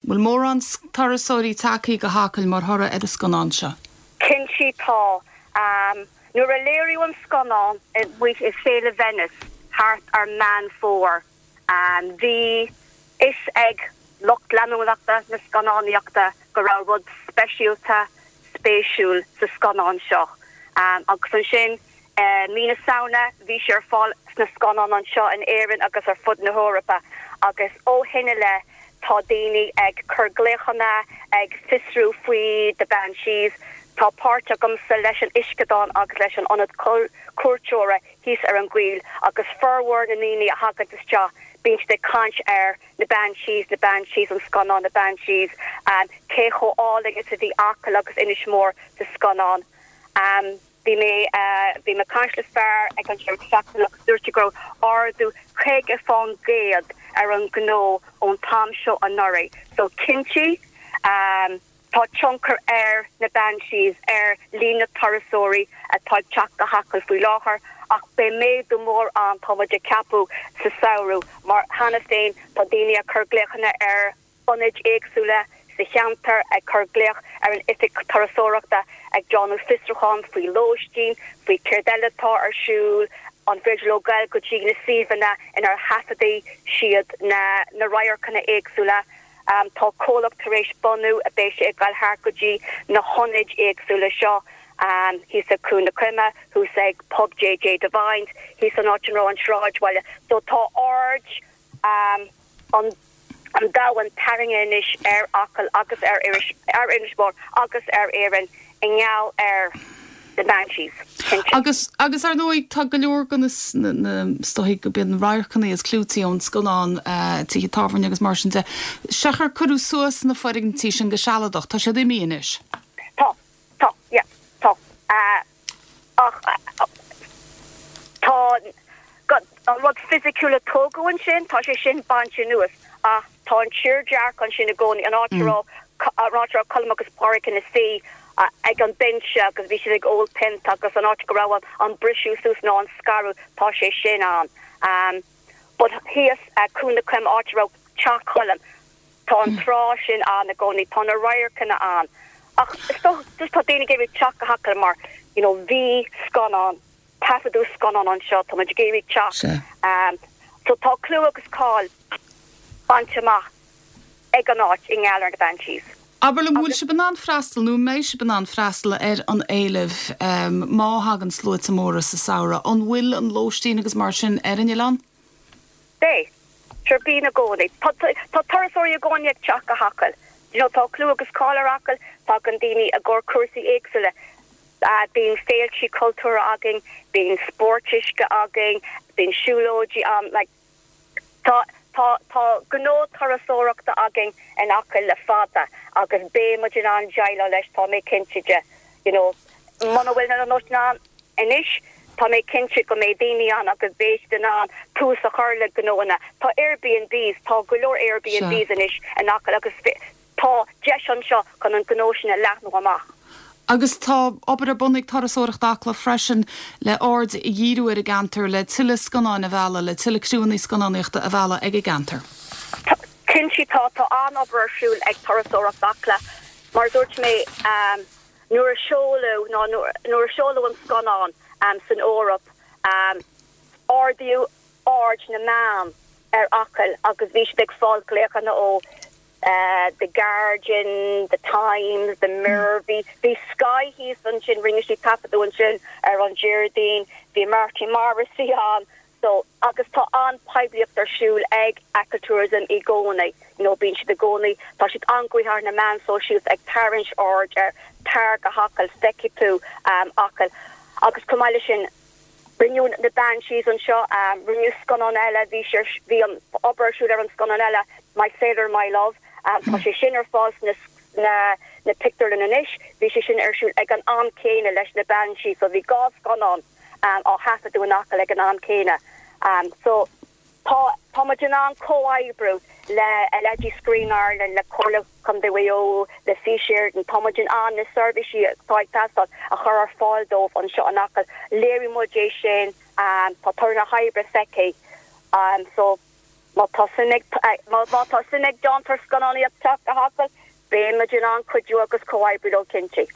Bhfuil mórán turasóirí tagthaí go hAcaill mar thoradh ar an scannán seo? Cinnte tá. Nuair a léiríodh an scannán amuigh i Féile Venice thart ar Meán Fómhair, bhí fhios ag lucht leanúnachta na scannánaíochta go raibh rud speisialta, spéisiúil sa scannán seo. Agus ansin I mí na Samhna bhí sé ar fáil sna scannáin anseo in Éirinn agus ar fud na hEorpa agus ó shin i leith tá daoine ag cur glaochanna, ag fiosrú faoi The Banshees. Tá páirt agamsa leis an uisceadán agus leis an ionad cuairteora thíos ar an gcoill agus formhór na ndaoine a thagann isteach bíonn siad ag caint ar na Banshees, na Banshees, an scannán na Banshees, cé chomh álainn is a bhí Acaill agus Inis Mór sa scannán. Bhí mé, bhí mé ag caint le fear ag an deireadh seachtaine agus dúirt sé go raibh ardú 50% ar an ngnó ón t-am seo anuraidh. So cinnte, tá tionchar ar na Banshees ar líon na turasóirí atá ag teacht go hAcaill faoi láthair ach beidh méadú mór ann, tá muid ag ceapadh, sa samhradh mar cheana féin tá daoine ag cur glaochanna ar ionaid éagsúla sa cheantar, ag cur glaoch ar an oifig turasóireachta, ag déanamh fiosrúchán faoi lóistín, faoi céard eile atá ar siúl, an féidir leo goil go dtí na suíomhanna inar thaifeadaigh siad na na radharcanna éagsúla. Tá comhlacht tar éis bunú a beidh sé ag goil thart go dtí na hionaid éagsúla seo, thíos ag Cuan na Coime, thuas ag Pub JJ Devine's, thíos an áit ina raibh an sráidbhaile. So tá aird an domhain tarraingthe anois ar Acaill agus ar Inis Mór agus ar Éirinn i ngeall ar The Banshees, cinnte. Agus, agus ar ndóigh, tá go leor de na, na, is dóigh go mb'iad na radharcanna is clúití ón scannán, tithe tábhairne agus mar sin de, seachar cuireadh suas na foirgintí sin go sealadach, tá siad imithe anois. Tá, tá, yeah, tá. Ach tá an rud fisiciúil a tógadh ansin, tá sé sin bainte anuas ach tá an tírdhreach ansin i gcónaí, an áit a raibh, an áit a raibh Colm agus Pádraic ina suí ag an binse agus bhí siad ag ól pionta agus an áit go raibh an briseadh suas nó an scaradh, tá sé sin ann. But thíos Cuan na Coime, áit a raibh teach Choilm, Tá an trá sin ann i gcónaí, tá na radharcanna ann ach is dócha just tá daoine ag iarraidh teacht go hAcaill mar you know bhí scannán, taifeadadh scannán anseo, tá muid ag iarraidh teacht. So tá clú agus cáil bainte amach ag an áit i ngeall ar na Banshees. Abair liom, bhfuil sibh in ann freastal nó an mbeidh sibh in ann freastal ar an éileamh má thagann sluaite móra sa samhradh? An bhfuil an lóistín agus mar sin ar an oileán? Beidh. Sure, bíonn i gcónaí. Tá tá turasóirí i gcónaí ag teacht go hAcaill. You know, tá clú agus cáil ar Acaill, tagann daoine i gcomhair cúrsaí éagsúla. Bíonn féiltí cultúrtha againn, bíonn spóirt uisce againn, bíonn siúlóidí ann, like tá tá tá gnó turasóireachta againn in Acaill le fada agus beidh muid in ann déileáil leis, tá mé cinnte de. You know, muna bhfuil na lóistín ann anois, tá mé cinnte go mbeidh daoine ann agus beidh siad in ann tús a chur le gnóanna. Tá Airbnbs, tá go leor Airbnbs anois in Acaill agus tá deis anseo chun an gnó sin a leathnú amach. Agus tá obair ar bun ag Turasóireacht Acla freisin le aird a dhíriú ar an gceantar, le tuilleadh scannáin a mhealladh, le tuilleadh criúnna scannánaíochta a mhealladh ag an gceantar. Cinnte tá, tá an-obair ar siúl ag Turasóireacht Acla. Mar a dúirt mé, nuair a seoladh, nó nuair a seoladh an scannán san Eoraip, ardaíodh aird na meán ar Acaill agus bhí siad ag fáil glaochanna ó The Guardian, The Times, The Mirror, bhí bhí Sky thíos ansin, rinne siad taifeadadh ansin ar an Déardaoin, bhí Marty Morrissey ann, So, agus tá an-poiblíocht ar siúl ag Achill Tourism i gcónaí, you know, bíonn siad i gcónaí, tá siad an-ghnoitheach ar na meáin sóisialta ag tarraingt aird ar tar go hAcaill, feicfidh tú Acaill. Agus chomh maith leis sin, rinneadh na Banshees anseo, rinneadh scannán eile, bhí sé, bhí an obair ar siúl ar an scannán eile, My Sailor My Love, tá sé sin ar fáil sna na na pictiúrlanna anois, bhí sé sin ar siúl ag an am céanna leis na Banshees, so bhí dhá scannán. á thaifeadadh in Acaill ag an am céanna. So tá tá muid in ann comhoibriú le leithéidí Screen Ireland, le Comhairle Contae Mhaigh Eo, le Fís Éireann, tá muid in ann na seirbhísí atá ag teastáil a chur ar fáil dóibh anseo in Acaill. Léirigh muid é sin, tá toradh na hoibre feicthe. So. Má tá suim ag má tá suim ag déantóir scannánaíocht teacht go hAcaill, beidh muid in ann cuidiú agus comhoibriú leo cinnte.